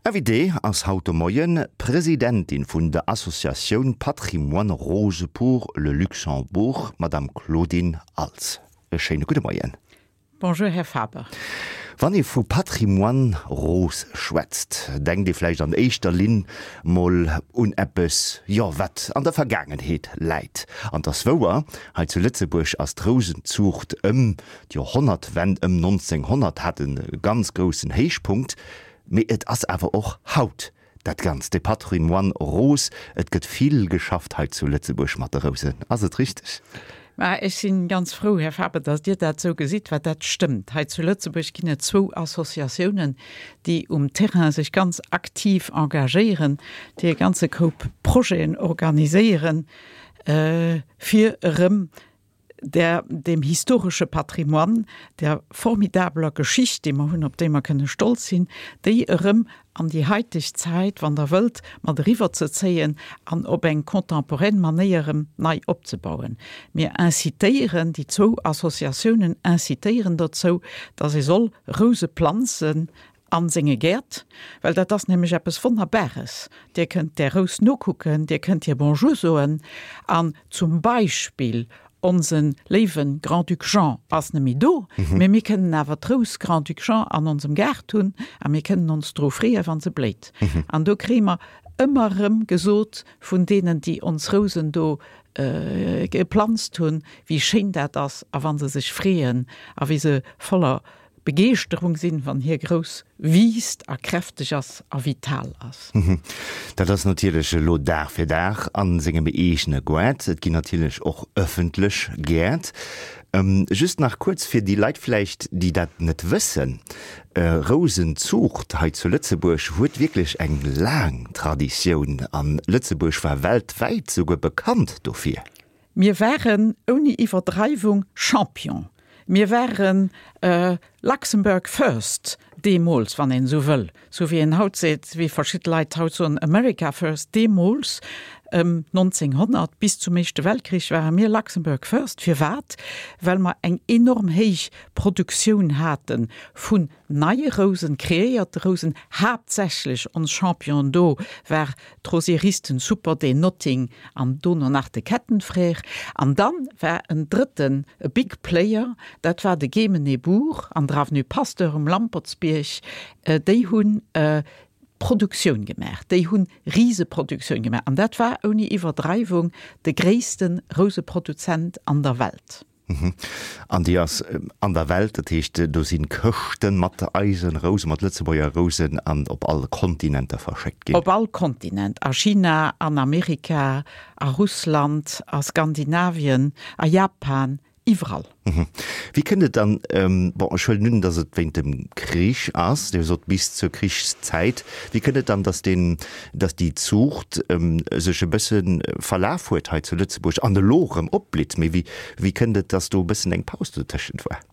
Invitée ass haut de Moien d'Presidentin vun der Associatioun Patrimoine Rose pour le Luxembourg, d'Madame Claudine Als. E schéine gudde Moien. Bonjour, Här Faber. Wann ee vu Patrimoine Rose schwätzt, denkt ee vläicht an éischter Linn mol un eppes, jo, wat an der Vergaangenheet läit. An 't ass wouer, hei zu Lëtzebuerg ass d'Rousenzuucht ëm d'Joerhonnertwend, ëm 1900, hat e ganz groussen Héichpunkt. Mee et ass awer och haut dat Ganzt, de Patrimoine Rose. Et gëtt vill geschafft hei zu Lëtzebuerg mat de Rousen. Ass et richteg? Mä ech si ganz frou, Här Faber, datt Dir dat esou gesitt, well dat stëmmt. Hei zu Lëtzebuerg ginn et zwou Associatiounen, déi um Terrain sech ganz aktiv engagéieren, déi e ganze Koup Projeten organiséieren, fir erëm der, deem historesche Patrimoine, der formidabeler Geschicht, déi mer hunn, op déi mer kënne stolz sinn, déi erëm an déi haiteg Zäit, wann Der wëllt, mat eriwwerzezéien an op eng contemporaine Manéier erëm nei opzebauen. Mir incitéieren, déi zwou Associatiounen incitéieren dozou, dass ee soll Rouse planzen A senge Gäert, well dat ass nämlech eppes Wonnerbares. Dir kënnt där Rous nokucken, Dir kënnt hir Bonjour soen an zum Beispill onse léiwe Grand-Duc Jean ass net méi do, mee mir kënnen awer d'Rous Grand-Duc Jean an onsem Gaart hunn a mir kënnen ons dru freeën, wa se bléit. An do kréie mer ëmmer erëm gesot vun deenen, déi ons Rousen do geplanzt hunn, wéi schéin dat ass a wa se sech freeën a wéi se voller Begeeschterung sinn, wann hie grouss wiisst a kräfteg ass a vital ass. Dat ass natierlech elo Dag fir Dag a sengem eegene Goart. Et ginn natierlech och ëffentlech Gäert. Just nach kuerz fir déi Leit vläicht, déi dat net wëssen, Rousenzuucht hei zu Lëtzebuerg huet wierklech eng laang Traditioun an Lëtzebuerg war weltwäit souguer bekannt dofir. Mir waren ouni Iwwerdreiwung Champion. Mir waren Luxembourg first deemools, wann een esou wëll, sou wéi een haut seet, wéi verschidde Leit haut soen, America first. Deemools, ëm 1900, bis zum Éischte Weltkrich, ware mir Luxembourg first. Firwat? Well mer eng enorm héich Produktioun hate vun neie Rousen, kreéierte Rousen, haaptsächlech ons Championen do war d'Rosieristen Super, den Notting an dono nach de Kettenfrère. An dann war en drëtten, e Big Player, dat war de Gemenebourg an der Avenue Pasteur um Lampertsbierg. Déi hunn Produktioun gemaach, déi hunn Riseproduktioun gemaach an dat war ouni Iwwerdreiwung de gréisste Rouseproduzent an der Welt. An déi ass an der Welt, dat heescht do si Këschte mat eise Rousen, mat Lëtzebuerger Rousen an op all Kontinenter verschéckt ginn. Op all Kontinent, a China, an Amerika, a Russland, a Skandinavien, a Japan, iwwerall. Wéi kënnt et dann, bon ech huelen un, datt et wéint dem Krich ass, Dir sot bis zur Krichszäit, wéi kënnt et dann, datt deen, datt déi Zuucht sech e bësse verlaf huet hei zu Lëtzebuerg an elo erëm opblitt. Mee wéi, wéi kënnt et, datt do e bëssen eng Paus dotëschent war?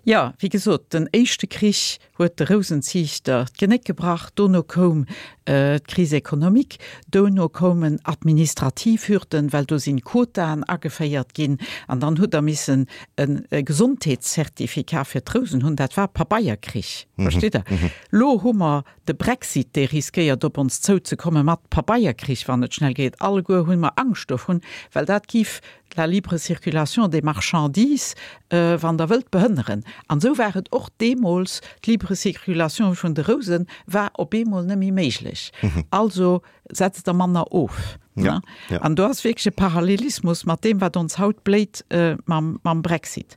Jo, wéi gesot, den éischte Krich huet de Rousenziichter d'Genéck gebrach, dono koum d'Crise économique, dono koumen administrativ Hürden, well do sinn Quotaen ageféiert ginn an dann hutt Der missen e Gesondheetscertificat fir d'Rousen hunn. Dat war Pabeierkrich, versteet Der? Lo hu mer De Brexit, dee riskéiert op ons zouzekomme mat Pabeierkrich, wann et schnell geet. Alleguer hu mer Angscht dovun, well dat giff la libre circulation des marchandises, wann Der wëllt, behënneren. An esou war et och deemools, d'libre circulation vun de Rousen war op eemol net méi méiglech. Also setzt Der manner of. Ja, ja. An do ass wierklech e Parallelismus mat deem, wat ons haut bléit mam, mam Brexit.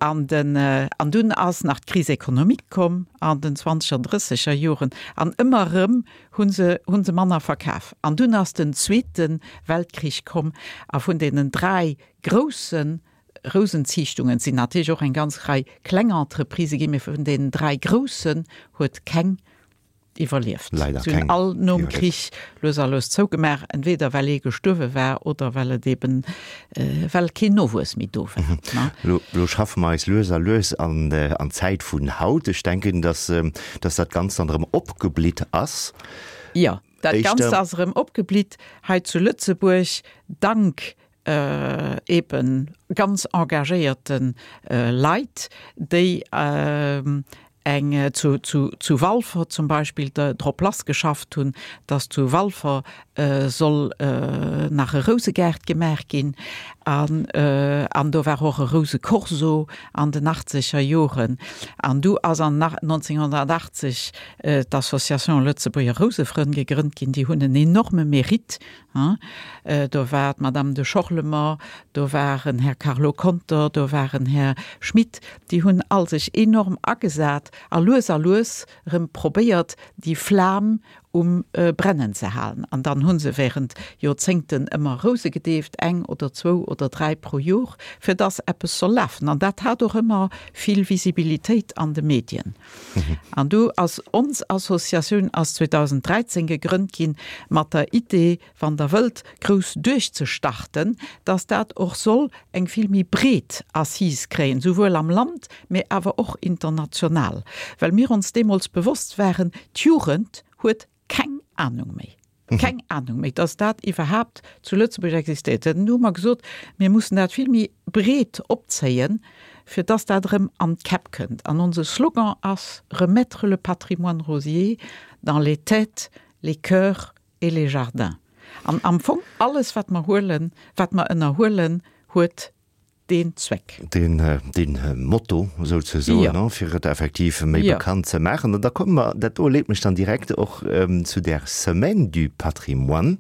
An den, an dunn ass nach d'Crise économique komm an den zwanzeger, drësseger Joren an ëmmer erëm hu se, hu se manner verkaf. An dunn ass den Zweete Weltkrich komm a vun deenen dräi grousse Rousenziichtungen, et sinn natierlech och eng ganz Rei kleng Entreprisë ginn, mee vun deenen dräi groussen huet keng iwwerlieft. Leider Si hunn keng all nom iwwerlieft. Krich lues a lues zougemaach, entweder well ee gestuerwe war oder well et eben, well keen Nowuess méi do war, ne? Lo, lo schaffe mer eis lues a lues an, an d'Zäit vun haut. Ech denken, dass, dass dat Ganzt dann erëm opgeblitt ass. Jo, dat Éischter. Ganzt ass erëm opgeblitt hei zu Lëtzebuerg, dank eben ganz engagéierte Leit, déi. eng zu, zu, zu Walfer zum Beispill drop lassgeschafft hunn, dass zu Walfer soll nach e Rousegaart gemaach ginn. An, an do war och e Rousecorso an den achtzeger Joren. An du ass an 1980 d'Association Lëtzebuerger Rousefrënn gegrënnt ginn. Déi hunn en enorme Mérite Do war d'Madame de Schorlemer, do war en Här Carlo Conter, do war en Här Schmit. Déi hunn all sech enorm agesat a lues a lues erëm probéiert, déi Flam um Brennen ze halen. An dann hu se während Joerzéngten ëmmer Rouse gedeeft, eng oder zwou oder dräi pro Jor, fir dass eppes soll lafen. An dat hat och ëmmer vill Visibilitéit an de Medien. An du ass ons Associatioun ass 2013 gegrënnt ginn mat der Idee, wann Der wëllt, grouss duerchzestarten, dass dat och soll eng vill méi breet Assise kréien, souwuel am Land, mee awer och international, well mir ons deemools bewosst waren, d'Jugend huet keng Ahnung méi. Keng Ahnung méi, dass dat iwwerhaapt zu Lëtzebuerg existéiert. Dann hu mer gesot, mir mussen dat vill méi breet opzéien, fir dass dat erëm an d'Käpp kënnt. An onse Slogan ass, Remettre le patrimoine rosier dans les têtes, les cœurs et les jardins. An am Fong alles, wat mer huelen, wat mer ënnerhuelen, huet deen Zweck. Deen, deen Motto souzesoen, jo, fir et effektiv méi jo bekannt ze maachen. An da komme mer, dat do leet mech dann direkt och zu där Semaine du Patrimoine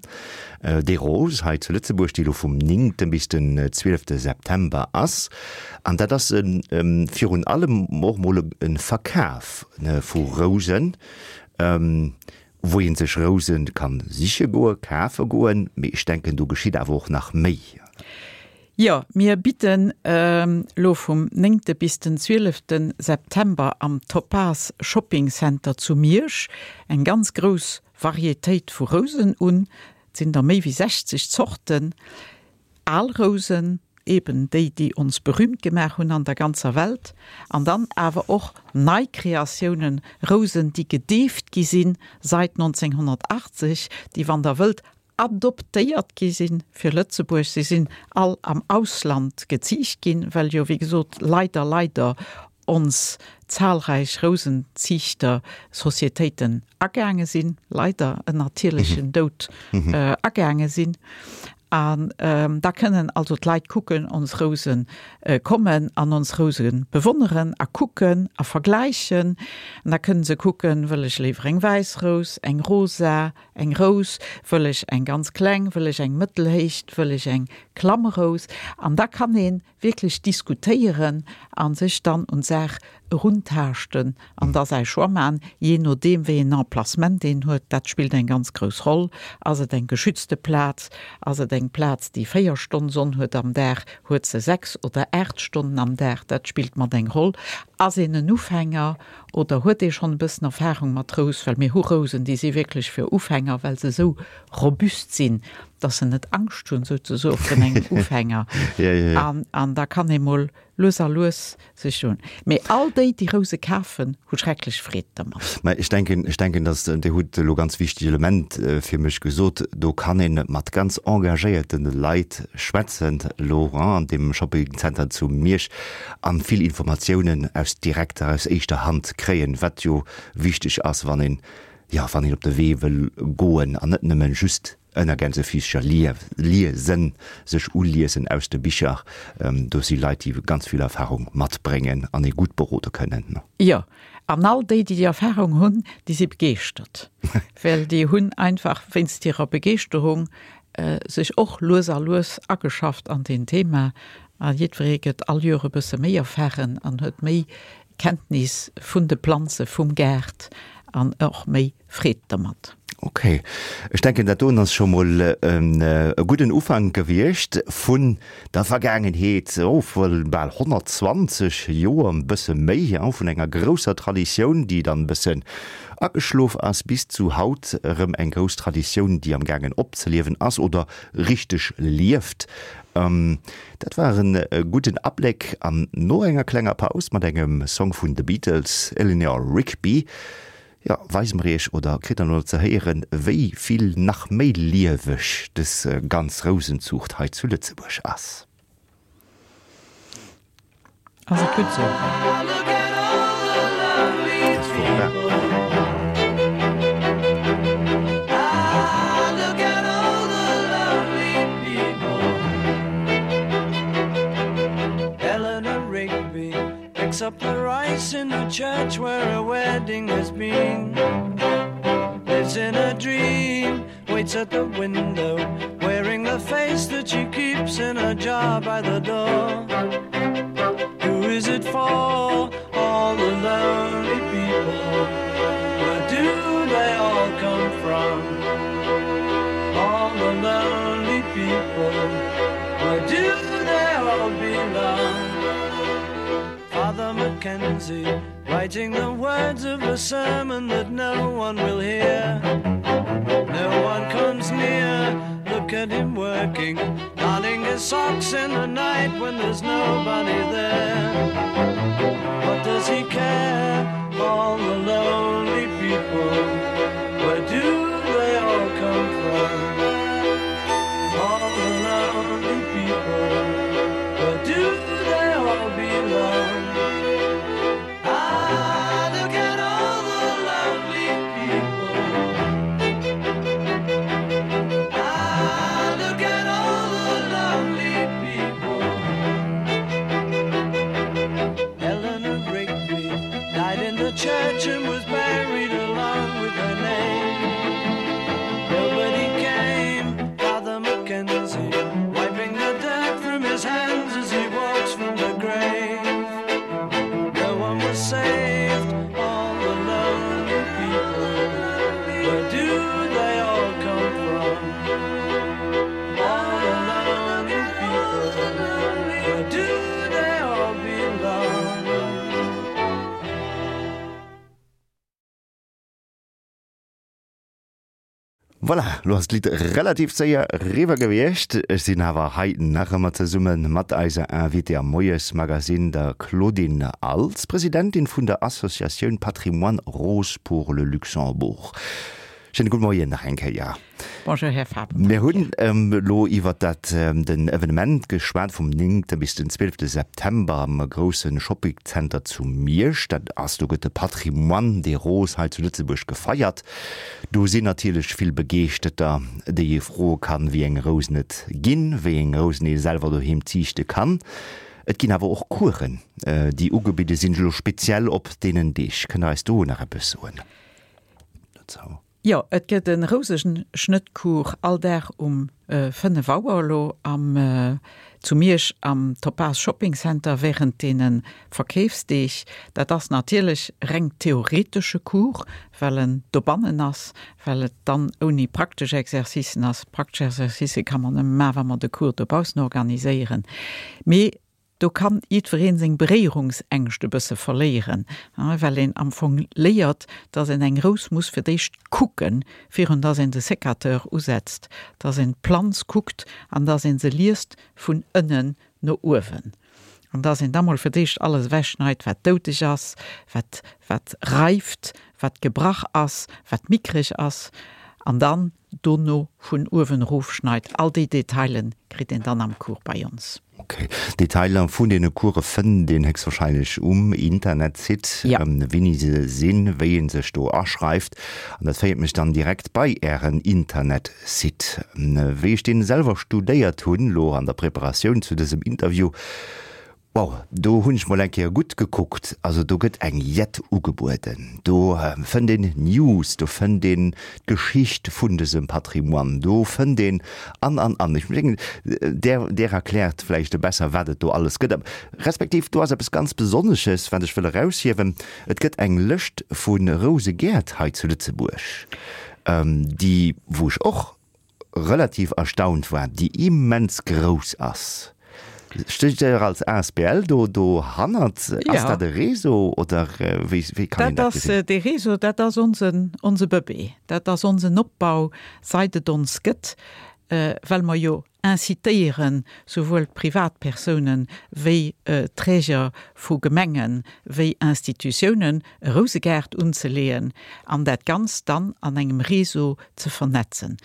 des Roses hei zu Lëtzebuerg, déi elo vum néngte bis den zwielefte September ass. An dat ass virun allem och mol e Verkaf vu Rousen, wou ee sech Rousen kann siche goen, kafe goen, mee ech denken, do geschitt awer och nach méi. Jo, mir bidden elo vum néngte bis den zwielefte September am Topaz Shopping Center zu Miersch eng ganz grouss Varietéit vu Rousen un. Et sinn der méi wéi 60 Zorten. Al Rousen, eben déi, déi ons berühmt gemaach hunn an der ganzer Welt, an dann awer och nei Kreatiounen, Rousen, déi gedeeft gi sinn seit 1980, déi, wann Der wëllt, adoptéiert gi si fir Lëtzebuerg. Si sinn all am Ausland geziicht ginn, well jo, wéi gesot, leider, leider ons zahlreich Rousenziichter-Societéiten agaange sinn, leider en natierlechen Doud agaange sinn. An da kënnen also d'Leit kucken, ons Rouse kommen an ons Rouse bewonneren a kucken a vergläichen. An da kënnen se kucken, wëll ech léiwer eng wäiss Rous, eng rosa, Eng Rous, wëll ech eng ganz kleng, wëll ech eng mëttelhéicht, wëll ech eng Klammrous? An da kann ee wierklech diskutéieren a sech dann un d'Saach eruntaaschten an da säi Choix maachen, jee nodeem wéi een Emplacement een huet. Dat spillt eng ganz grouss Roll. Ass et eng geschützte Plaz? Ass et eng Plaz, déi 4 Stonn Sonn huet am Dag? Huet se 6 oder 8 Stonnen am Dag? Dat spillt mat eng Roll. Ass een en Ufänger? Oder huet ee schonn e bëssen Erfahrung mat Rous? Well mir hu Rousen, déi si wierklech fir Ufänger, well se esou robust sinn, dass se net Angscht hunn souzesoe vun engem Ufänger. An, an da kann ee mol lues a lues sech un. Mee all déi, déi Rouse kafen, hu schrecklech Freed dermat. Mä ech denken, ech denken, dass, Dir hutt elo ganz wichteg Element fir mech gesot, do kann ee mat ganz engagéierte Leit schwätzen elo an deem Shoppingcenter zu Miersch. An vill Informatiounen aus direkter, aus éischter Hand kréien, wat jo wichteg ass, wann een, jo, wann een op de Wee wëll goen an net nëmmen just ënner Gänsefischer liesen, sech uliesen aus de Bicher. Do si Leit, déi ganz vill Erfahrung matbréngen an ee gutt berode kënnen. Jo, an all déi, déi déi Erfahrung hunn, déi si begeeschtert, well déi hunn einfach wéinst hirer Begeeschterung sech och lues a lues ageschafft an deen Thema a jiddweree gëtt all Joer e bësse méi erfahren an huet méi Kenntnis vun de Planze vum Gaart an och méi Freed dermat. Ok, ech denken dat doen ass scho mol e gudden Ufank gewiescht vun der Vergaangenheet, oh vu bal 120 Joer, e bësse méi, vun enger grousser Traditioun, déi dann e bëssen ageschlof ass, bis zu haut erëm eng grouss Traditioun, déi am gaangen opzeliewen ass oder richteg lieft. Dat war e gudden Abléck an no enger klenger Paus mat engem Song vun The Beatles, Eleanor Rigby, jo, weise mer iech oder kritt der elo ze héieren, wéi vill nach méi lieweg dës ganz Rousenzuucht hei zu Lëtzebuerg ass. Ass et gutt sou? face in the church where a wedding has been. Lives in a dream, waits at the window, wearing the face that she keeps in a jar by the door. Who is it for? All the lonely people. Where do they all come from? All the lonely people. Where do they all belong? Father Mackenzie writing the words of a sermon that no one will hear. No one comes near, look at him working, darning his socks in the night when there's nobody there. What does he care? All the lonely people, where do they all come from? All the lonely people, where do they all belong? Ah, look at all the lonely people. Ah, look at all the lonely people. Eleanor Rigby died in the church and was buried along with her name. Nobody came, Father Mackenzie, wiping the dirt from his hands as he walks from the grave. No one was saved, all the lonely people. Where do they all come from? All the lonely people. Where do they all belong? Voilà, lo ass d'Lidd relativ séier eriwwer gewiescht. Ech sinn awer hei nach ëmmer zesumme mat eiser Invitée am Moiesmagazine, der Claudine Als, Presidentin vun der Associatioun Patrimoine Rose pour le Luxembourg. Schéine gudde Moien nach eng Kéier. Bonjour Här Faber. Mir hunn elo iwwer dat den Evenement geschwat vum 9. bis den 12. September am grousse Shoppingzenter zu Miersch. Dat ass, do gëtt de Patrimoine des Roses hei zu Lëtzebuerg gefeiert. Do sinn natierlech vill Begeeschteter, déi ee froe kann, wéi eng Rousen et ginn, wéi eng Rousen ee selwer doheem ziichte kann. Et ginn awer och Coursen, déi ugebidde sinn, elo speziell op deenen Deeg. Kënnt Der eis do nach eppes soen dozou? Jo, et gëtt e Rouseschnëttcours all Dag um 5 Auer elo am zu Miersch am Topaz Shopping Center während deene Verkeefsdeeg. Dat ass natierlech reng theoretesche Cours, well en dobannen ass, well et dann ouni praktesch Exercicen ass. Praktesch Exercicë ka man nëmme maachen, wa mer de Cours dobaussen organiséieren. Mee Do kann jiddwereen seng Beréierungsängscht e bësse verléieren, well een am Fong léiert, dass een eng Rous muss fir d'éischt kucken, virun dass een de Sécateur usetzt, dass een d'Planz kuckt an dass een se liest vun ënnen no uewen an dass een da mol fir d'éischt alles ewechschneit, wat doudeg ass, wat wat reift, wat gebrach ass, wat mickreg ass an dann dono vun uewen erof schneit. All déi Detailen kritt een dann am Cours bei ons. Ok, Detailer vun deene Course fënnt een héchstwahrscheinlech um Internetsite, wéini se sinn, wéi een sech do aschreift. An dat féiert mech dann direkt bei Ären Internetsite. Wéi ech deen selwer studéiert hunn, lo an der Preparatioun zu dësem Interview, Wow, do hunn ech mol eng Kéier gutt gekuckt. Also do gëtt eng Jett ugebueden. Do fënnt een News, do fënnt een d'Geschicht vun dësem Patrimoine, do fënnt een an, an, an. Ech mengen, där, där erkläert vläicht e besser, wat et do alles gëtt. Respektiv do ass eppes ganz Besonnesches, wat ech wëll eraushiewen, Et gëtt eng Lëscht vu Rousegäert hei zu Lëtzebuerg, déi, wou ech och relativ erstaunt war, déi immens grouss ass. Steet Dir als asbl do dohannert? Ass dat e Réseau oder wéi wéi kann een dat gesinn? Dat ass dee Réseau, dat ass onsen onse Bëbee. Dat ass onsen Opbau, seit et ons gëtt, well mer jo incitéieren, souwuel d'Privatpersounen wéi d'Träger vu Gemengen wéi Institutiounen, e Rousegaart unzeleeën an dat Ganzt dann an engem Réseau ze vernetzen.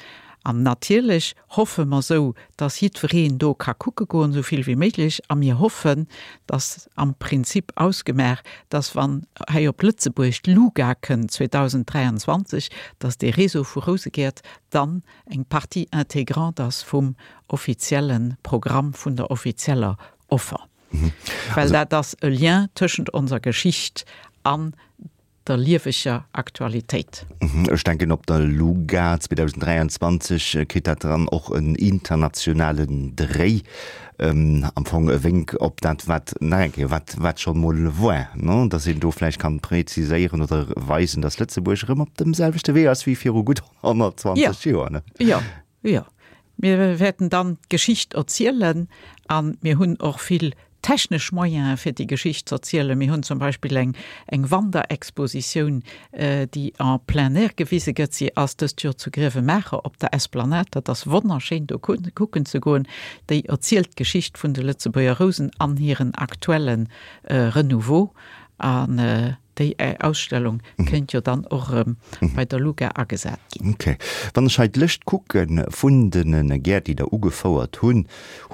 An natierlech hoffe mer sou, dass jiddwereen do ka kucke goen, esou vill wéi méiglech. A mir hoffen, dass am Prinzip ausgemaach, dass wann hei op Lëtzebuerg d'LUGA kënnt 2023, dass dee Réseau vu Rousegäert dann eng Partie intégrante ass vum offizielle Programm, vun der offizieller Offer. Well dat ass e Lien tëschent onser Geschicht an der lieweger Aktualitéit. Ech denken op der LUGA 2023 kritt dat dann och en internationalen Dréi, am Fong e Wénk op dat wat nach eng Kéier, wat wat scho mol war, ne, datt een do vläicht kann präziséieren oder weisen, datt Lëtzebuerg erëm op dem selwechte Wee ass wéi viru gutt 120 Joer, ne? Jo, jo. Mir wäerten dann d'Geschicht erzielen a mir hunn och vill technesch Moyene fir déi Geschicht ze erzielen. Mir hunn zum Beispill eng eng Wanderexpositioun, déi en plein air gewise gëtt. Si ass dëst Joer zu Grevenmacher op der Esplanade. Dat ass wonnerschéin do kucken ze goen. Déi erzielt d'Geschicht vun de Lëtzebuerger Rousen an hiren aktuelle Renouveau. An Déi Ausstellung kéint jo dann och erëm bei der LUGA agesat ginn. Ok. Wann ech hei d'Lëscht kucke vun de Gäert, déi Der ugefouert hunn,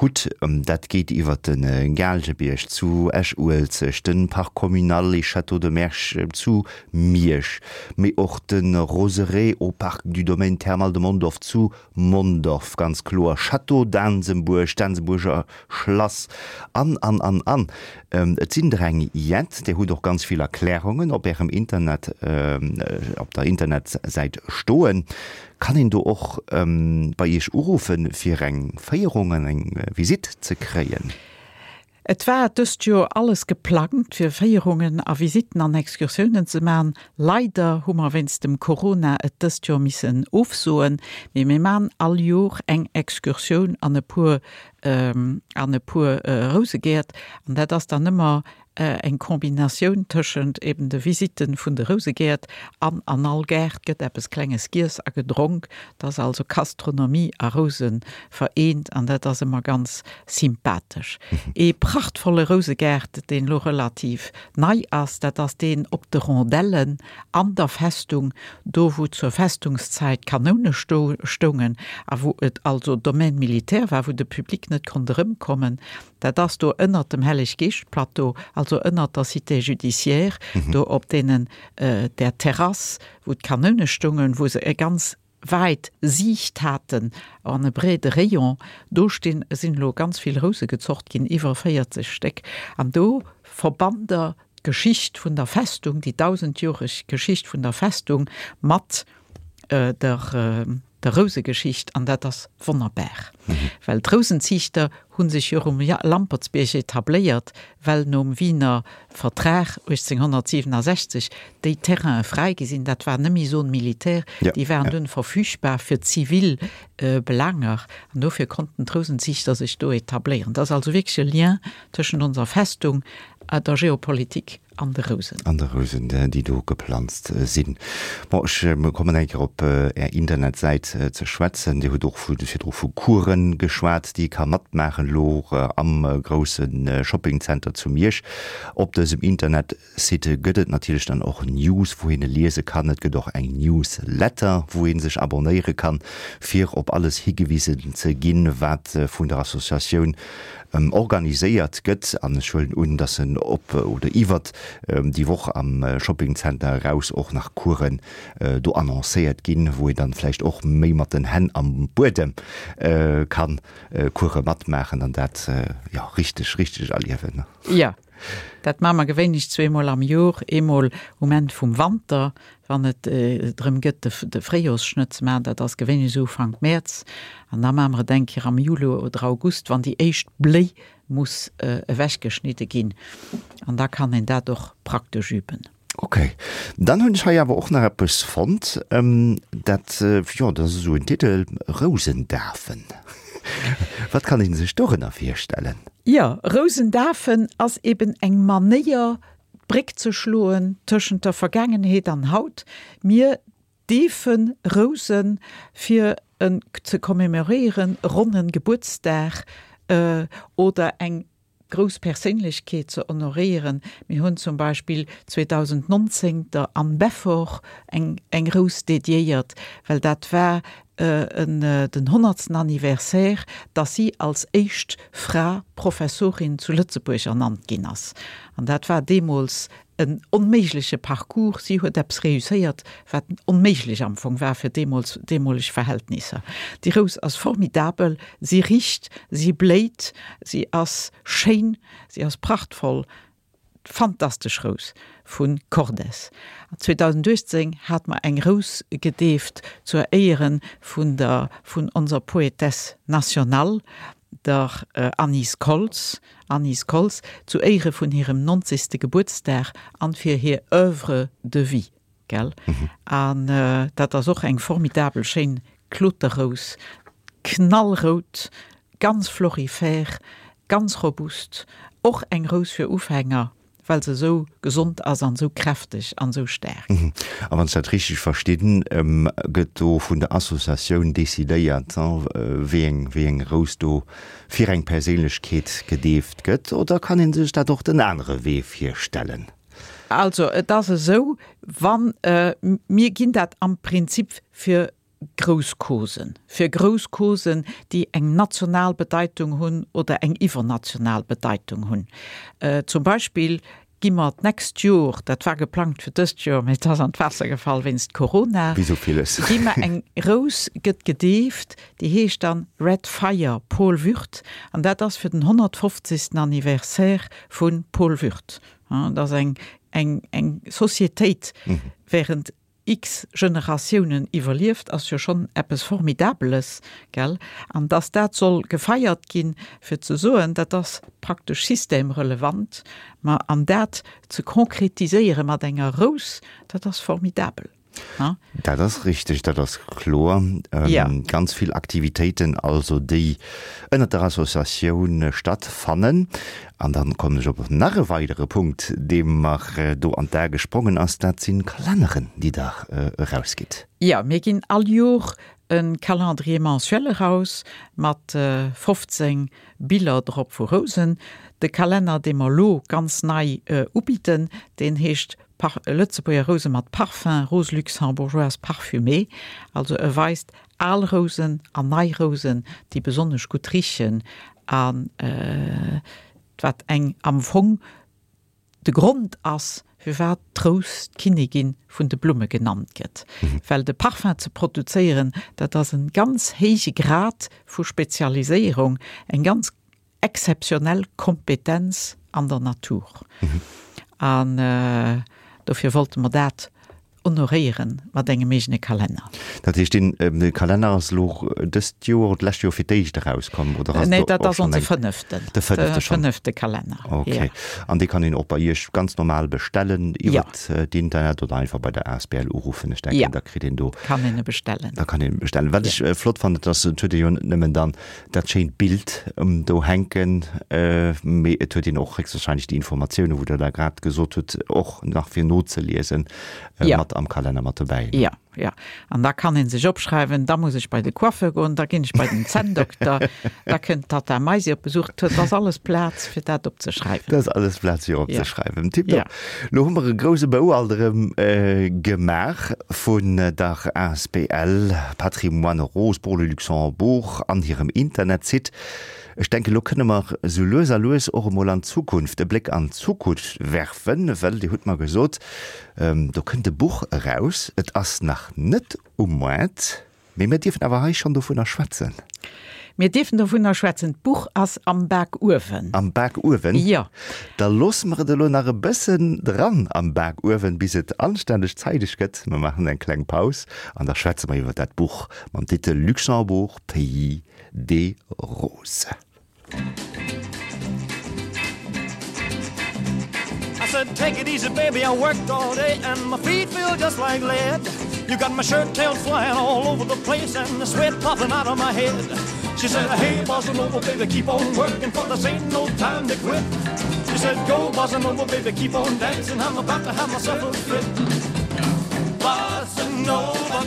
hutt, dat geet iwwer de Gaalgebierg zu Esch-Uelzecht, de Parc communal et Château de Mersch zu Miersch, mee och de Roseraie au Parc du Domaine Thermal de Mondorf zu Mondorf, ganz kloer, Château d'Ansembourg, d'Ansembourger Schlass an, an, an, an. Et sinn der eng jett. Dir hutt och ganz vill Erklärungen op Ärem Internet, op der Internetsäit stoen. Kann een do och bei Iech uruffen, fir eng Féierung an eng Visitt ze kréien? Et war dëst Joer alles geplangt fir Féierungen a Visitten an Excursiounen ze man. Leider hu mer wéinst dem Corona et dëst Joer missen ofsoen, mee mir man all Jor eng Excursioun an e puer an e puer Rousegäert an dat ass dann ëmmer eng Kombinatioun tëschent eben de Visitten vun de Rousegäert an an all Gaart gëtt eppes Klenges giess a gedronk. Et ass also Gastronomie a Rousen vereent an dat ass ëmmer ganz sympathesch. Ee prachtvolle Rousegaart, deen elo relativ nei ass, dat ass deen op de Rondellen an der Festung, do wou zur Festungszäit Kanoune stoungen a wou et also Domaine militaire war, wou de Public net konnt erëmkommen. Dat ass do ënnert dem Helleg-Geescht-Plateau, also ënnert der Cité judiciaire, do op deenen, där Terrass, wou d'Kanoune stoungen, wou se e ganz wäit Siicht haten an e breede Rayon. Do stinn, sinn elo ganz vill Rouse gezocht ginn, iwwer 40 Stéck. An do verbannt Der d'Geschicht vun der Festung, déi dausendjoreg Geschicht vun der Festung mat der, der Rousegeschicht an dat ass wonnerbar, well d'Rousenziichter hu sech jo um Lampertsbierg etabléiert, well nom Wiener Vertrag 1867 déi Terrainen fräi gi sinn, dat war net méi Zone militaire, déi waren dunn verfügbar fir zivil Belaanger an dofir konnten d'Rousenziichter sech do etabléieren. Dat ass also wierklech e Lien tëschent onser Festung, der Geopolitik An de Rousen. An de Rousen, déi do geplanzt sinn. Bon, ech kommen eng Kéier op Är Internetsäit ze schwätzen. Dir hutt och virdru vu Coursen geschwat, déi ee ka matmaachen elo am grousse Shoppingcenter zu Miersch. Op dësem Internetsite gëtt et natierlech dann och News, wou een e liese kann. Et gëtt och eng Newsletter, wou ee sech abonnéiere kann, fir op alles higewisen ze ginn, wat vun der Associatioun organiséiert gëtt, an ech huelen un, dass en op oder iwwert déi Woch am Shoppingcenter eraus och nach Coursen do annoncéiert ginn, wou een dann vläicht och méi mat den Hänn am Buedem kann Course matmaachen an dat, jo, richteg, richteg erliewen. Jo, dat maache mer gewéinlech zweemol am Jor, eemol um Enn vum Wanter, wann et drëm gëtt, de Fréijorsschnëtt ze maachen, dat ass gewéinlech esou Ufank Mäerz, an da maache mer et eng Kéier am Juli oder August, wann déi éischt Bléi muss ewechgeschnidde ginn, an da kann een dat och praktesch üben. Ok, dann hunn ech hei awer och nach eppes fonnt, dat, jo, dat ass esou en Titel, Rousendafen. Wat kann ee sech dorënner virstellen? Jo, Rousendafen ass eben eng Manéier, d'Bréck ze schloen tëschent der Vergaangenheet an haut. Mir deefe Rousen, fir en ze commemoréieren, e ronnen Gebuertsdag oder eng grouss Perséinlechkeet ze honoréieren. Mir hunn zum Beispill 2019 der Anne Beffort eng eng Rous dediéiert, well dat war. en den honnertsten Anniversaire, dass si als éischt Fra Professorin zu Lëtzebuerg ernannt ginn ass. An dat war deemools en onméigleche Parcours. Si huet eppes réusséiert, wat onméiglech am Fong war fir deemools deemoleg Verhältnisser. Déi Rous ass formidabel, si richt, si bléit, si ass schéin, si ass prachtvoll. Fantastesch Rous vu Cordes. 2018 hat mer eng Rous gedeeft zur Éiere vun der vun onser Poétesse nationale, der Anise Koltz, Anise Koltz, zu Éiere vun hirem 90. Gebuertsdag an fir hir Oeuvre de vie. Gell? An dat ass och eng formidabel schéin Kloterrous, knallrout, ganz florifère, ganz robust, och eng Rous fir Ufänger, well se esou gesond ass an esou kräfteg an esou staark. A wann ech dat richteg verstinn, gëtt do vun der Associatioun decidéiert, wéi eng, wéi eng Rous do fir eng Perséinlechkeet gedeeft gëtt, oder kann ee sech dat och den anere Wee virstellen? Also et ass esou, wann, mir ginn dat am Prinzip fir grouss Causen, fir grouss Causen, déi eng national Bedeitung hunn oder eng iwwernational Bedeitung hunn. Zum Beispill gi mer d'nächst Jor, dat war geplangt fir dëst Joer, mä et ass an d'Waasser gefall wéinst Corona, Wéi sou villes. gi mer eng Rous gëtt gedeeft, déi heescht dann Red Fire Paul Würth an dat ass fir den 150. Anniversaire vu Paul Würth. Dass eng, eng, eng Societéit während x Generatiounen iwwerlieft, ass jo schonn eppes Formidabeles, gell? An dass dat soll gefeiert ginn, fir ze soen, dat ass praktesch systemrelevant, ma an dat ze konkretiséiere mat enger Rous, dat ass formidabel. Dat ass richteg, dat ass kloer. Ganz vill Aktivitéiten also, déi ënnert der Associatioun stattfannen. An dann kommen ech op nach e weidere Punkt, dee mer do an d'A gesprongen ass, dat si Kalenneren, déi Der erausgitt. Jo, mir ginn all Jor e Calendrier mensuel eraus mat 15 Biller drop vu Rousen. De Kalenner, dee mer elo ganz nei ubidden, deen heescht Lëtzebuerger Rouse mat Parfum, Rose luxembourgeoise parfumée. Also e weist al Rousen an nei Rousen, déi besonnesch gutt richen a wat eng am Fong de Grond ass, firwat d'Rous d'Kinnigin vun de Blumme genannt gëtt. Well de Parfum ze produzéieren, dat ass en ganz héije Grad vu Spezialiséierung, eng ganz exzeptionell Kompetenz an der Natur. An dofir wollte mer dat honoréiere mat engem eegene Kalenner. Dat heescht, dee Kalenner ass elo dëst Joer oder d'lescht Joer fir d'éischt erauskomm? Oder ass Nee, dat ass onse fënneften. De fënnefte schonn? De fënnefte Kalenner, jo. Okay. An dee kann een och bei Iech ganz normal bestellen iwwer d'Internet oder einfach bei der asbl uruffen? Ech denken, da kritt een do. Kann een e bestellen. Da kann een e bestellen. Wat ech flott fannen, dat ass, et huet ee jo net nëmmen dann dat schéint Bild do hänken, mee et huet een och héchstwahrscheinlech déi Informatiounen, wou Der da grad gesot hutt, och nach fir nozeliesen mat am Kalenner mat dobäi. Jo, jo. An da kann ee sech opschreiwen, da muss ech bei de Coiffeur goen, da ginn ech bei den Zänndokter, da kënnt d'Tatta Maisi op Besuch. Dat ass alles Plaz, fir dat opzeschreiwen. Dat ass alles Plaz, fir opzeschreiwen. Tiptop. Lo hu mer e grouse Bou alt erëm gemaach vun der asbl Patrimoine Rose pour le Luxembourg an hirem Internetsite. Ech denken, lo kënne mer sou lues a lues och emol an d'Zukunft, e Bléck an d'Zukunft werfen, well Dir hutt mer gesot, do kënnt e Buch eraus. Et ass nach net um Moart. Mee mir dierfen awer hei schonn dovunner schwätzen. Mir dierfen dovunner schwätzen. D'Buch ass am Bakuewen. Am Bakuewen? Jo. Da loosse mer et elo nach e bëssen dran am Bakuewen, bis et anstänneg zeideg gëtt. Mer maachen eng kleng Paus an da schwätze mer iwwer dat Buch mam Titel Luxembourg, pays des roses. I said, take it easy, baby, I worked all day and my feet feel just like lead. You got my shirt tails flying all over the place and the sweat popping out of my head. She said, hey, bossa nova, baby, keep on working, for this ain't no time to quit. She said, go, bossa nova, baby, keep on dancing, I'm about to have myself a fit. Bossa nova,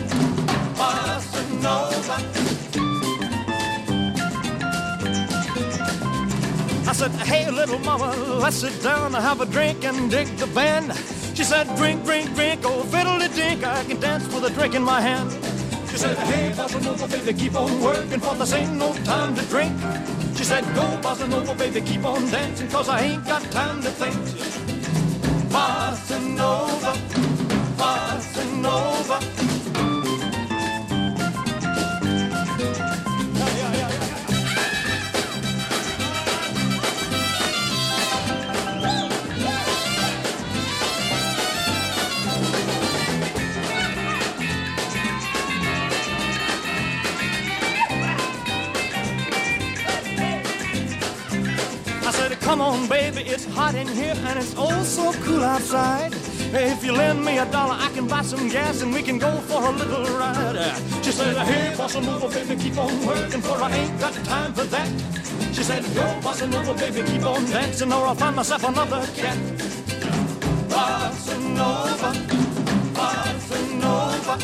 bossa nova. I said, hey, little mama, let's sit down and have a drink and dig the band. She said, drink, drink, drink, oh, fiddle dink, I can dance with a drink in my hand. said, hey, bossa nova, baby, keep on working, for this ain't no time to drink. She said, go, bossa nova, baby, keep on dancing, cause I ain't got time to think. Bossa nova, bossa nova. I said, come on, baby, it's hot in here and it's oh so cool outside. If you lend me a dollar, I can buy some gas and we can go for a little ride. She said, hey, bossa nova, baby, keep on working, for I ain't got time for that. She said, go, bossa nova, baby, keep on dancing, or I'll find myself another cat. Bossa nova, bossa nova.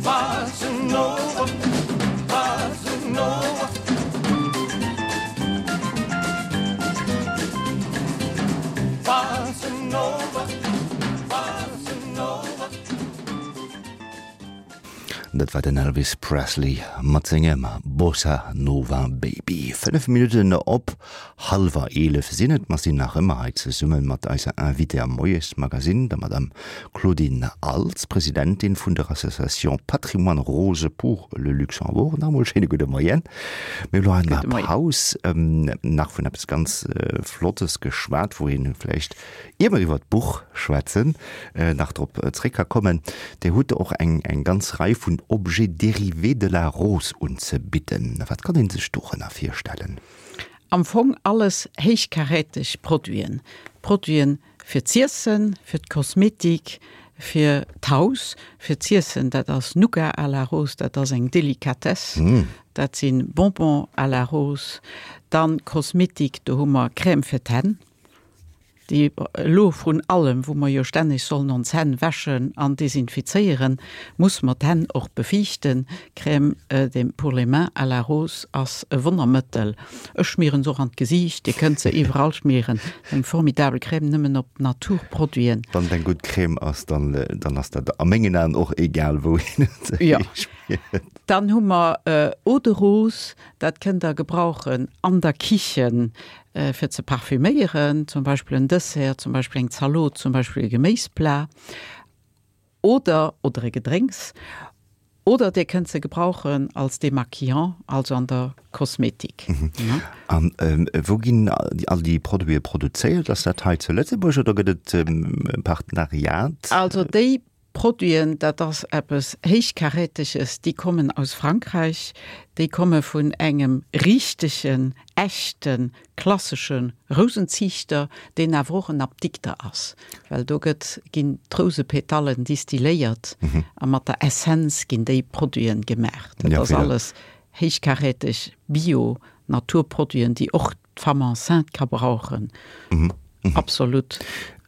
Bossa nova, bossa nova. Bossa nova, bossa nova. Dat war den Elvis Presley mat sengem Bossa Nova Baby. 5 Minutten op hallwer 11 sinn et. Mer sinn nach ëmmer hei zesumme mat eiser Invitée am Moiesmagazine, der Madame Claudine Als, Presidentin vun der Association Patrimoine Rose pour le Luxembourg. Nach emol schéine gudde Moien. Mir hu lo an der Paus nach vun eppes ganz Flottes geschwat, wou ee vläicht, Ier mer iwwer d'Buch schwätzen, nach drop zréck ka kommen, Dir hutt och eng eng ganz Rei vun Objets dérivés de la rose unzebidden. Wat kann ee sech dorënner virstellen? Am Fong alles héichkaräteg Produiten. Produiten fir z'iessen, fir d'Kosmetik, fir d'Haus. Fir z'iessen, dat ass Nougat à la rose, dat ass eng Delikatess, dat si Bonbons à la rose. Dann Kosmetik, do hu mer Crème fir d'Hänn, déi elo vrun allem, wou mer jo stänneg sollen ons Hänn wäschen an desinfizéieren, muss mer d'Hänn och befiichten. Crème de pour les mains à la rose ass e Wonnermëttel. Ech schmieren se och an d'Gesiicht, Dir kënnt se iwwerall schmieren. Eng formidabel Crème, nëmmen op Naturproduiten. Wann et eng gutt Crème ass, dann, dann ass dat a mengen Aen och egal, wou een et Jo. hischmiert. Dann hu mer Eau de Rose, dat kënnt Der gebrauchen an der Kichen, fir ze parfüméieren, zum Beispill en Dessert, zum Beispill eng Zalot, zum Beispill e Geméisplat oder oder e Gedrénks. Oder Dir kënnt se gebrauchen als Démaquillant, also an der Kosmetik. A wou ginn all déi Produite produzéiert? Ass dat hei zu Lëtzebuerg oder gëtt et e Partenariat? Also déi Produiten, dat ass eppes Héichkaräteges, déi kommen aus Frankräich, déi komme vun engem richtegen, echten, klassesche Rousenziichter, deen awer och en Apdikter ass, well do gëtt, ginn d'Rousepetallen distilléiert a mat der Essenz ginn déi Produiten gemaach. Dat ass alles héichkaräteg, bio, Naturproduiten, déi och d'Femme enceinte ka brauchen, absolut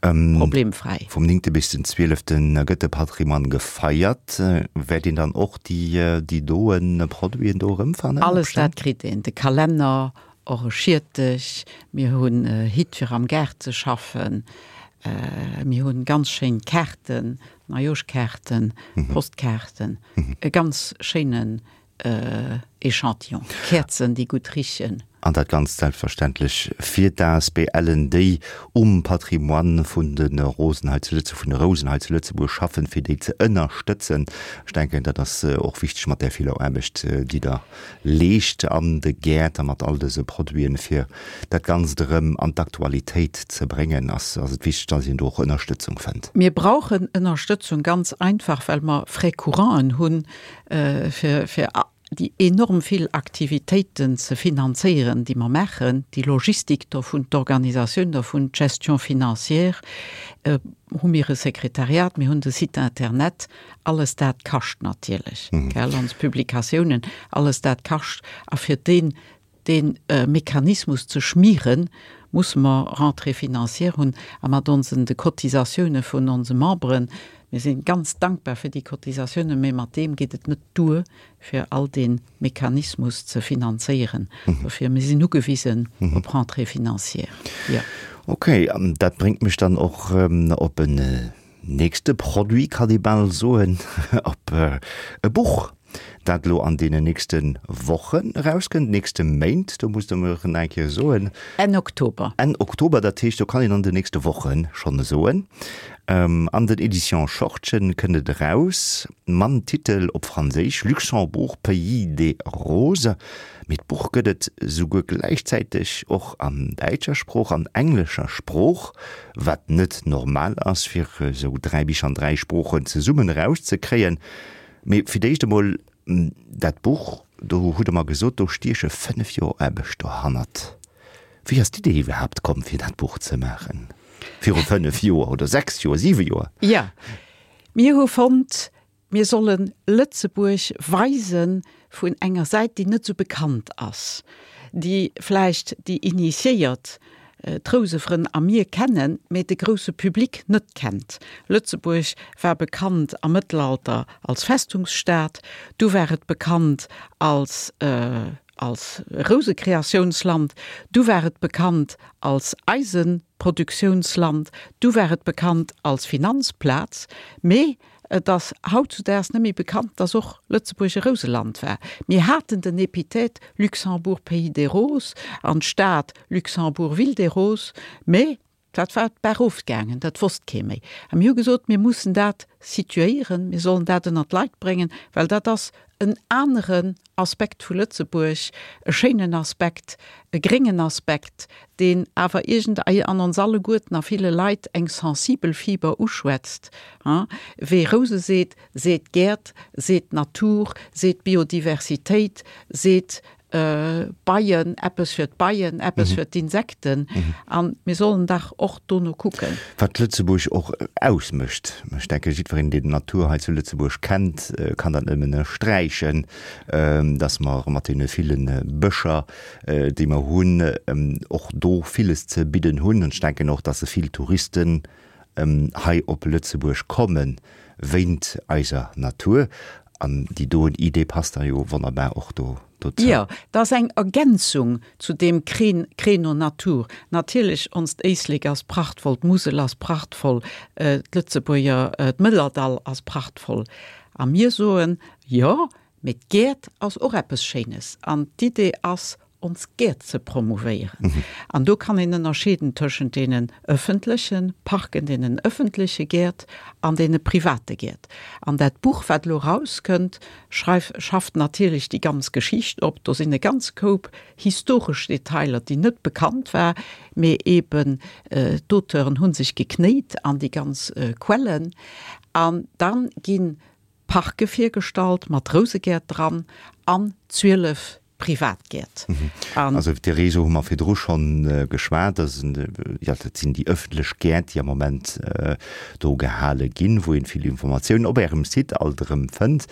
problemfräi. Vum 9. bis den 12. gëtt de Patrimoine gefeiert. Wäert een dann och déi doen Produiten do erëmfannen? Alles dat kritt een, de Kalenner, och e Schiertech, mir hunn Hitt fir am Gaart ze schaffen, mir hunn ganz schéin Kaarten, Neijoschkaarten, Postkaarten, e ganz schéinen Echantillon, Käerzen déi gutt richen. An dat Ganzt selbstverständlech fir d'ASBLen, déi um Patrimoine vun de Rosen hei zu Lëtzebuerg, vun de Rousen hei zu Lëtzebuerg schaffen, fir déi ze ënnerstëtzen. Ech denken, dat ass och wichteg mat där viller Aarbecht, déi Der leescht an de Gäert a mat all dëse Produiten, fir dat Ganzt erëm an d'Aktualitéit ze bréngen, ass et wichteg, dass een do och Ënnerstëtzung fënnt. Mir brauchen Ënnerstëtzung ganz einfach, well mer Frais couranten hunn, fir fir déi enorm vill Aktivitéiten ze finanzéieren, déi mer maachen, déi Logistik dovun, d'Organisatioun dovun, d'Gestion financière, hu mir e Sekretariat, mir hunn de Site internet, alles dat kascht natierlech, gell, ons Publikatiounen, alles dat kascht. A fir deen Dee Mechanismus ze schmieren, musse mer Rentrée financière hunn a mat onsen, de Cotisatioune vun onse Memberen, mir si ganz dankbar fir déi Cotisatiounen, mä mat deem geet et net duer, fir all dee Mechanismus ze finanzéieren. Dofir, mir sinn ugewisen op Rentrée financière, jo. Okay, an dat bréngt mech dann och op en. nächste Produit, kann ee bal soen, op e Buch, dat elo an deenen nächste Wochen erauskënnt, nächste Méint, do musst Der mer nach eng Kéier soen. Enn Oktober. Enn Oktober, dat heescht, do kann een an den nächste Woche schonn soen. An den Editions Schortgen kënnt et eraus, mam Titel op Franséisch Luxembourg, pays des roses. Mee d'Buch gëtt et souguer gläichzäiteg och an däitscher Sprooch an englescher Sprooch, wat net normal ass, fir esou 3 Bicher an 3 Sproochen zesummen erauszekréien. Mee fir d'éischt emol, dat Buch, do hutt Der mer gesot, do stieche 5 Joer Aarbecht dohannert. Wéi ass d'Idee iwwerhaapt komm, fir dat Buch ze maachen? Viru 5 Joer oder 6 Joer, 7 Joer? Jo, mir hu fonnt, Mir solle Lëtzebuerg weise vun enger Säit, déi net esou bekannt ass, déi vläicht déi Initiéiert, d'Rousefrënn a mir kennen, mä de grousse Public net kennt. Lëtzebuerg war bekannt am Mëttelalter als Festungsstad, du war et bekannt als als Rousekreatiounsland, du war et bekannt als Eisenproduktiounsland, du war et bekannt als Finanzplaz, mä Et ass hautzudaags net méi bekannt, dass och Lëtzebuerg e Rouseland war. Mir haten den Epithet Luxembourg, pays des roses an d'Stad Luxembourg, ville des roses, mä dat war d'Baach ofgaangen, dat wosst kee méi. A mir hu gesot, mir mussen dat situéieren, mir sollen dat ënnert d'Leit bréngen, well dat ass en aneren Aspekt vu Lëtzebuerg, e schéinen Aspekt, e gréngen Aspekt, deen awer iergend an ons alleguerten a ville Leit eng sensibel Fiber uschwätzt. Wee Rouse seet, seet Gäert, seet Natur, seet Biodiversitéit, seet Beien, eppes fir d'Beien, eppes fir d'Insekten. A mir sollen dach och dono kucken. Wat Lëtzebuerg och ausmécht. Ech denke jiddwereen, deen d'Natur hei zu Lëtzebuerg kennt, kann dat nëmmen ënnersträichen, dass mer mat deene ville Bëscher, déi mer hunn, och do villes ze bidden hunn. An ech denken och, dass vill Touristen hei op Lëtzebuerg komme wéint eiser Natur. An déi doen Idee passt da jo wonnerbar och do dozou. Jo, dat ass eng Ergänzung zu deem Créneau Natur. Natierlech, onst Éislek ass prachtvoll, d'Musel ass prachtvoll, d'Lëtzebuerger, d'Mëllerdall ass prachtvoll. A mir soen, jo, mee d'Gäert ass och eppes Schéines. An d'Idee ass, ons Gäert ze promouvéieren. An do kann een ënnerscheeden tëschent deenen ëffentleche Parken, deenen ëffentleche Gäert an deene private Gäert. An dat Buch, wat elo erauskënnt, schreif, schafft natierlech déi ganz Geschicht op. Do sinn e ganz Koup historesch Detailer, déi net bekannt war, mee eeben d'Auteuren hu sech geknéit an déi ganz Quellen. An dann ginn Parke virgestallt mat Rousegäert dran an 12 Privatgäert. An. Also iwwer de Réseau hu mer virdru schonn geschwat. Dat sinn, jo, dat sinn déi ëffentlech Gäert, déi am Moment do gehale ginn, wou een vill Informatiounen op Ärem Site alt erëm fënnt.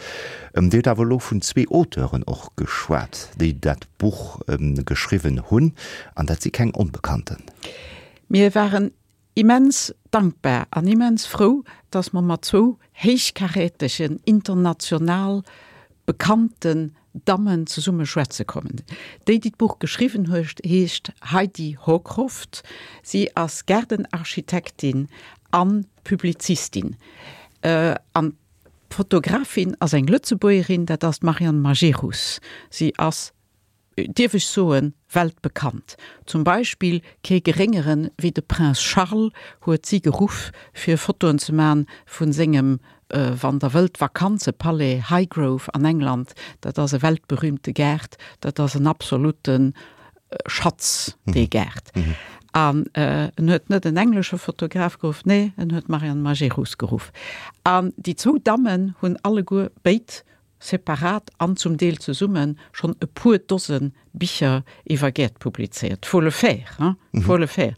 Dir hutt awer elo vun zwee Auteuren och geschwat, déi dat Buch geschriwwen hunn, an dat si keng Onbekannten. Mir waren Immens dankbar an immens frou, dass mer mat zwou héichkarätegen, international bekannten Dammen zesumme schwätze kommen. Déi, déi d'Buch geschriwwen huet, heescht Heidi Hocroft. Si ass Gaardenarchitektin a Publizistin. An d'Fotografin ass eng Lëtzebuergerin, dat ass d'Marianne Majerus. Si ass dierf ech soen, weltbekannt. Zum Beispill kee geréngeren wéi de Prince Charles huet si geruff fir Fotoen ze man vun sengem, wann der wëllt, Vakanzepalais Highgrove an England. Dat ass e weltberühmte Gaart, dat ass en absolute Schatz, dee Gaart. An en huet net en englesche Fotograf geruff, nee, en huet d'Marianne Majerus geruff. An déi zwou Dammen hunn alleguer béid separat an zum Deel zesumme schonn e puer Dose Bicher iwwer Gäert publizéiert. Faut le faire, hein, faut le faire.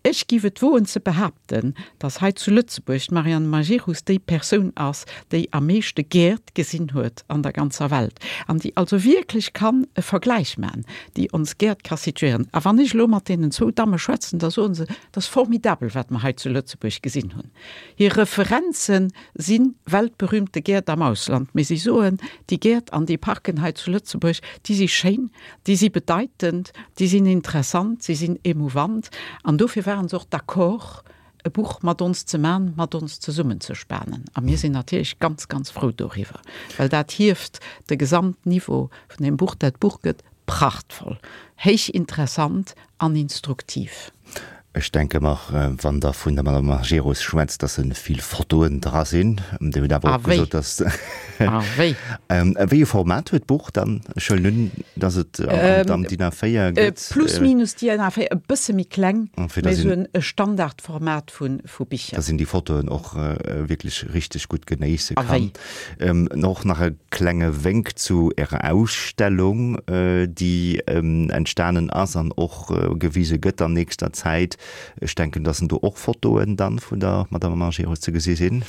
Ech giff et woen ze behaapten, dass hei zu Lëtzebuerg d'Marianne Majerus déi Persoun ass, déi am meeschte Gäert gesinn huet an der ganzer Welt an déi also wierklech kann e Vergläich man, déi ons Gäert ka situéieren. A wann ech elo mat deenen zwou Damme schwätzen, da soen se, Et ass formidabel, wat mer hei zu Lëtzebuerg gesinn hunn. Hir Referenzen si weltberühmte Gäert am Ausland, mee si soen, déi Gäert an déi Parken hei zu Lëtzebuerg, déi si schéin, déi si bedeitend, déi sinn interessant, si sinn émouvant. An dofir ware se och d'accord. e Buch mat ons ze man, mat ons zesummenzespanen. A mir sinn natierlech ganz, ganz frou doriwwer, well dat hieft de Gesamtniveau vun deem Buch. Dat Buch gëtt prachtvoll, héich interessant an instruktiv. Ech denke mer, wann Der vun der Madame Majerus schwätzt, dass se vill Fotoen dra sinn. Dir hutt awer och gesot, dass. A wéi! Wéi e Format huet d'Buch dann? Ech huelen un, dass et am DIN A4 gëtt. Plus minus DIN A4, e bësse méi kleng, mee esou e Standardformat vu Bicher. Dass een déi Fotoen och wierklech richteg gutt genéisse kann. A wéi! Och nach e klenge Wénk zu Ärer Ausstellung, déi entstanen ass an och gewise gëtt an nächster Zäit. Ech denken, dass do och Fotoen dann vun der Madame Majerus ze gesi sinn.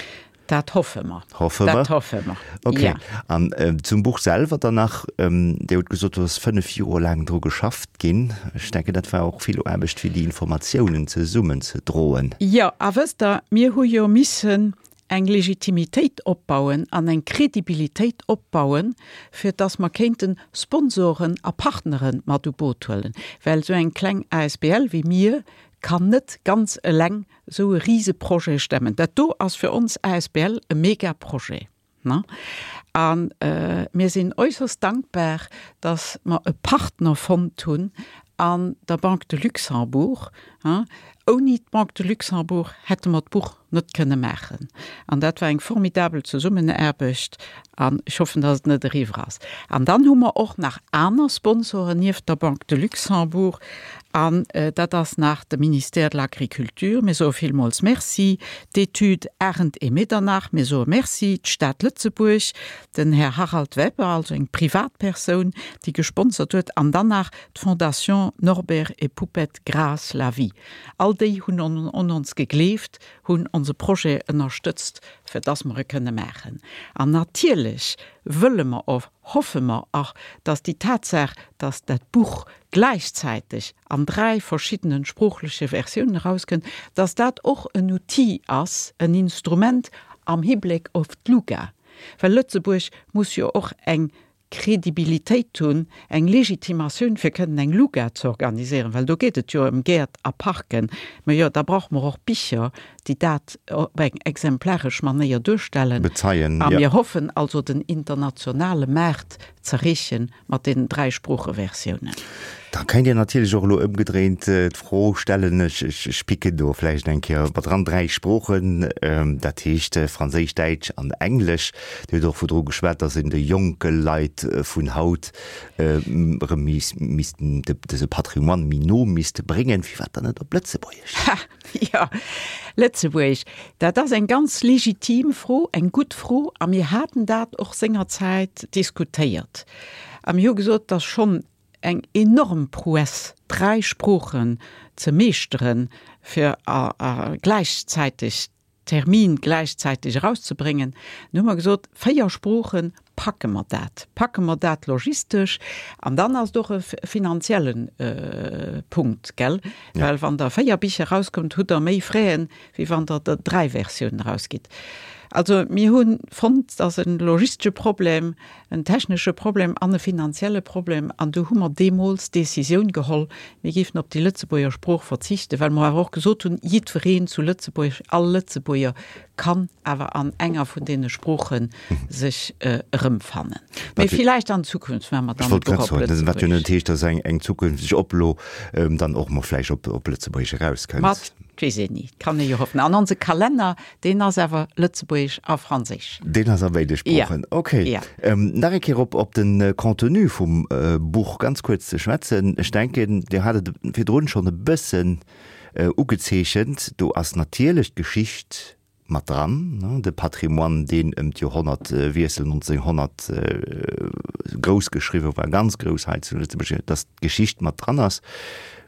Dat hoffe mer. Hoffe mer. Dat hoffe mer, Okay. Ja. An zum Buch selwer dann nach. Dir hutt gesot, do ass 5 Joer laang dru geschafft ginn. Ech denken, dat war och vill Aarbecht, fir déi Informatiounen zesummenzedroen. Jo, a wësst Der, mir hu jo missen eng Legitimitéit opbauen an eng Kredibilitéit opbauen, fir dass mer kéinte Sponsoren a Partnere mat u Boot huelen, well esou eng kleng asbl wéi mir kann net ganz eleng esou e Riseprojet stemmen. Dat do ass fir ons asbl e Megaprojet. A mir sinn äusserst dankbar, dass mer e Partner fonnt hunn an der Banque de Luxembourg. Ouni d'Banque de Luxembourg hätte mer d'Buch net kënne maachen. An dat war eng formidabel Zesummenaarbecht an ech hoffen, dass et net eriwwer ass. An dann hu mer och nach aner Sponsoren nieft der Banque de Luxembourg an dat ass nach de Ministère de l'Agriculture, mir soe villmools Merci, d'Études Arendt et Medernach, mir soe Merci, d'Stad Lëtzebuerg, den Här Harald Weber, also eng Privatpersoun, déi gesponsert huet, an dann nach d'Fondation Norbert et Poupette Graas la Vie. All déi hunn un ons gegleeft, hunn onse Projet ënnerstëtzt, fir dass mer e kënne maachen. An natierlech wëlle mer och, hoffe mer och, dass déi Tatsaach, dass dat Buch gläichzäiteg an dräi verschiddene sproochleche Versiounen erauskënnt, dass dat och en Outil ass, en Instrument am Hibléck op d'LUGA. Well Lëtzebuerg muss jo och eng Kredibilitéit hunn, eng Legitimatioun fir kënnen eng Luga ze organiséieren, well do geet et jo ëm Gäert a Parken. Mä jo, da brauche mer och Bicher, déi dat op eng exemplaresch Manéier duerstellen. Bezeien, jo. A mir hoffen also den internationale Maart z'erreechen mat deenen dräi Sproocheversiounen. Da kéint een natierlech och elo ëmgedréint d'Fro stellen, ech, ech picken do vläicht eng Kéier mat dran, dräi Sproochen, dat heescht Franséisch, Däitsch an Englesch. Dir hutt och virdru geschwat, datt een de jonke Leit vun haut erëm missten dëse Patrimoine méi no misst bréngen. Firwat dann net op Lëtzebuergesch? Ha, jo, Lëtzebuergesch, dat ass eng ganz legitim Fro, eng gutt Fro a mir haten dat och sengerzäit diskutéiert a mir hu gesot, datt schonn eng enorm Prouesse, dräi Sproochen ze meeschteren, fir a gläichzäiteg Termin gläichzäiteg erauszebréngen. Dann hu mer gesot, véier Sproochen, packe mer dat, packe mer dat logistesch? An dann ass et och e finanzielle Punkt, gell? Well wann Der véier Bicher erauskommt, hutt Der méi Fräen, wéi wann Der der dräi Versiounen erausgitt. Also mir hu fonnt, et ass e logistesche Problem, en technesche Problem an e finanzielle Problem. An du hu mer deemools d'Décisioun geholl, mir géifen op déi Lëtzebuerger Sprooch verzichten, well mer awer och gesot hunn, jiddwereen zu Lëtzebuerg, all Lëtzebuerger kann awer an enger vun deene Sprooche sech erëmfannen. Mee villäicht an Zukunft maache mer dann e Buch op Lëtzebuergesch. Wat jo net heescht, datt eng zukünfteg Oplo dann och mol vläicht op Lëtzebuergesch erauskënnt. Mat, 't weess een ni, 't kann ee jo hoffen. An onse Kalenner, deen ass awer Lëtzebuergesch a Franséisch. Deen ass a béide Sproochen, ok. Ja. Nach eng Kéier op op de Contenu vum Buch ganz kuerz ze schwätzen. Ech denken, Dir hat et virdrun schonn e bëssen ugezeechent, do ass natierlech d'Geschicht mat dran, de Patrimoine, deen ëm d'Joerhonnertwiessel 1900 grouss geschriwwe war, ganz grouss hei zu Lëtzebuerg, dass d'Geschicht mat dran ass,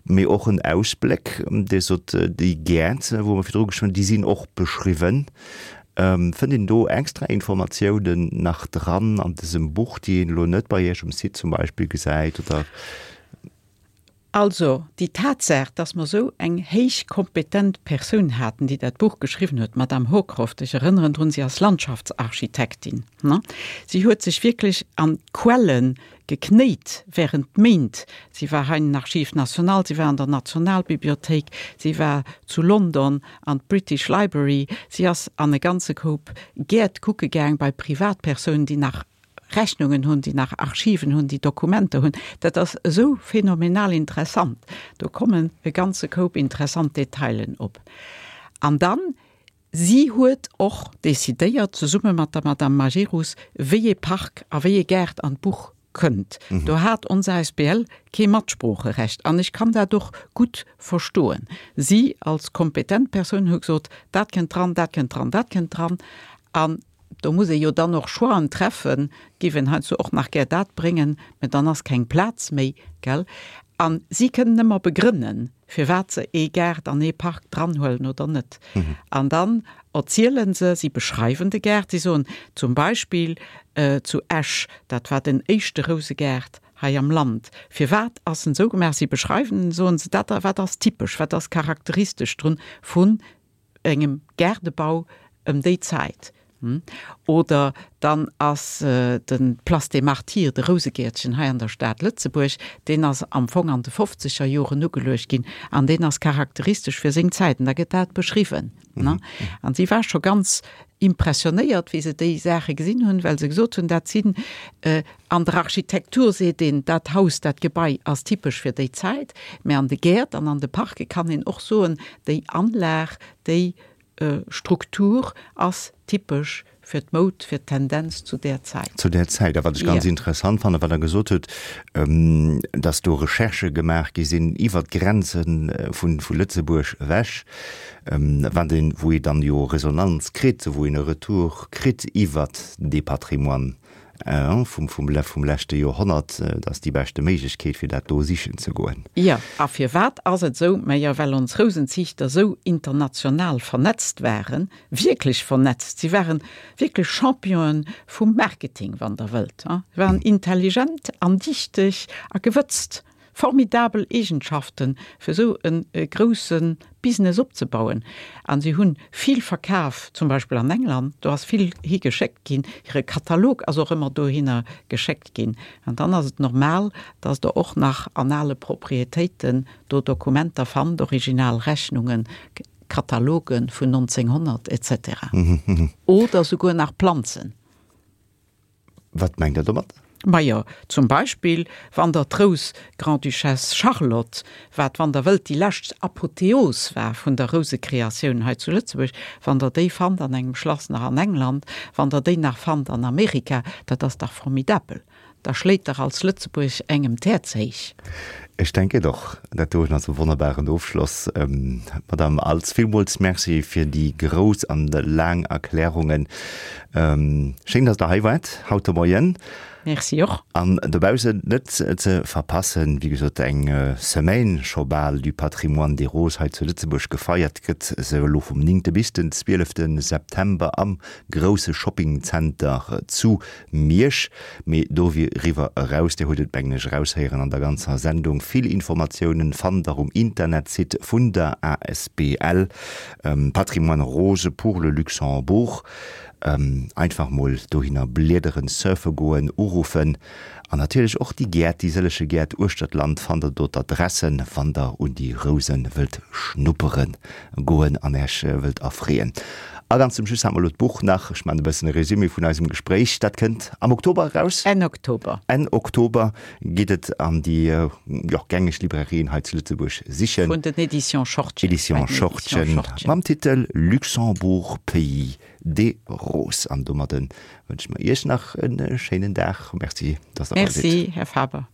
mee och en Ausbléck, Dir sot, déi Gäert, wou mer virdru geschwat hunn, déi sinn och beschriwwen. Fënnt een do extra Informatiounen nach dran an dësem Buch, déi een elo net bei Iech um Site zum Beispill gesäit, oder? Also, déi Tatsaach, dass mer esou eng héich kompetent Persoun haten, déi dat Buch geschriwwen huet, d'Madame Hocroft, ech erënneren drun, si ass Landschaftsarchitektin, ne, si huet sech wierklech an d'Quelle geknéit während Méint. Si war hei an den Archives nationales, si war an der Nationalbibliothéik, si war zu London an d'British Library, si ass an e ganze Koup Gäert kucke gaang bei Privatpersounen, déi nach Rechnungen hunn, déi nach Archiven hunn, déi Dokumenter hunn. Dat ass esou phänomenal interessant. Do kommen e ganze Koup interessant Detailen op. An dann, si huet och decidéiert, zesumme mat der Madame Majerus, wéi ee Park a wéi ee Gaart an d'Buch kënnt. Do hat ons asbl kee Matsproocherecht. An ech kann dat och gutt verstoen. Si als kompetent Persoun huet gesot, dat kënnt dran, dat kënnt dran, dat kënnt dran. An Do muss ee jo dann och Choixen treffen, géif een heiansdo och nach gär dat bréngen, mä dann ass keng Plaz méi, gell? A si kënnen ëmmer begrënnen, firwat se ee Gaart an ee Park dranhuelen oder net. An dann erziele se, si beschreiwen de Gaart, si soen zum Beispill zu Esch, dat war den éischte Rousegaart hei am Land. Firwat ass en esou gemaach? Si beschreiwen en, soen se, dat wat ass typesch, wat ass charakteristesch drun vun engem Gaardebau ëm déi Zäit. Oder dann ass de Place des Martyrs, de Rousegäertchen hei an der Stad Lëtzebuerg, deen ass am Fong an de fofzeger Joren ugeluecht ginn an deen ass charakteristesch fir seng Zäit an da gëtt dat beschriwwen. An si war scho ganz impressionéiert, wéi se déi Saache gesinn hunn, well se gesot hunn, dat sinn An der Architektur seet een, dat Haus, dat Gebai ass typesch fir déi Zäit, mä an de Gäert an an de Parke kann een och soen, déi Anlag, déi Struktur ass typesch fir d'Moud, fir d'Tendenz zu där Zäit. Zu där Zäit. A wat ech ganz interessant fannen, wat Der gesot hutt, dass do Recherchë gemaach gi sinn iwwert d'Grenze vu Lëtzebuerg ewech, wat een, wou ee dann jo Resonanz kritt, wou een e Retour kritt iwwert dee Patrimoine. Vum leschte Joerhonnert, dat ass déi beschte Méiglechkeet, fir dat do sichen ze goen. Jo, a firwat ass et esou? Majo, well ons Rousenziichter esou international vernetzt waren, wierklech vernetzt. Si waren wierklech Championen vum Marketing, wann Der wëllt. Si waren intelligent an dichteg a gewëtzt. Formidabel Eegenschaften, fir esou e grousse Business opzebauen. A si hunn vill verkaf, zum Beispill an England, do ass vill hi geschéckt ginn, hire Katalog ass och ëmmer dohinner geschéckt ginn. An dann ass et normal, datt Der och nach an ale Proprietéiten do Dokumenter fannt, original Rechnungen, Kataloge vun 1900 etc. Oder souguer nach Planzen. Wat mengt Der domat? Majo, zum Beispill, wann Der d'Rous Grande-Duchesse Charlotte, wat, wann Der wëllt, déi lescht Apotheos war vun der Rousekreatioun hei zu Lëtzebuerg, wann Der déi fannt an engem Schlass nach an England, wann Der déi nach fannt an Amerika, dat ass dach formidabel. Da schléit dach als Lëtzebuerg engem d'Häerz héich. Ech denken och, dat doen ass e wonnerbaren Ofschloss. Madame Als, villmools Merci fir déi grouss an laang Erklärungen. Schéin, dass Der hei waart haut de Moien. Merci och. An dobaussen net ze verpassen, wéi gesot, eng Semaine scho bal du Patrimoine des Roses hei zu Lëtzebuerg gefeiert gëtt se elo vum 9. bis den 12. September am grousse Shoppingzenter zu Miersch, mee doriwwer eraus, Dir hutt et mengen ech eraushéieren an der ganzer Sendung, vill Informatiounen fannt der um Internetsite vun der asbl Patrimoine Rose pour le Luxembourg. Einfach mol dohinner bliederen, surfe goen, uruffen an natierlech och déi Gäert, déi sëllege Gäert uechter d'Land fannt der do d'Adressen, wann der un déi Rousen wëllt schnuppere goen an Äech wëllt erfreeën. A ganz zum Schluss hat mer elo d'Buch nach, ech maachen e bëssen e Résumé vun eisem Gespréich, dat kënnt am Oktober eraus. Enn Oktober. Enn Oktober geet et an déi, jo, gängeg Librairien hei zu Lëtzebuerg sichen. Vun den Éditions Schortgen. Éditions Schortgen mam Titel Luxembourg, Pays des Roses. An domadde wënsche mer Iech nach e schéinen Dag. Merci, dass Der bei sidd. Merci, Här Faber.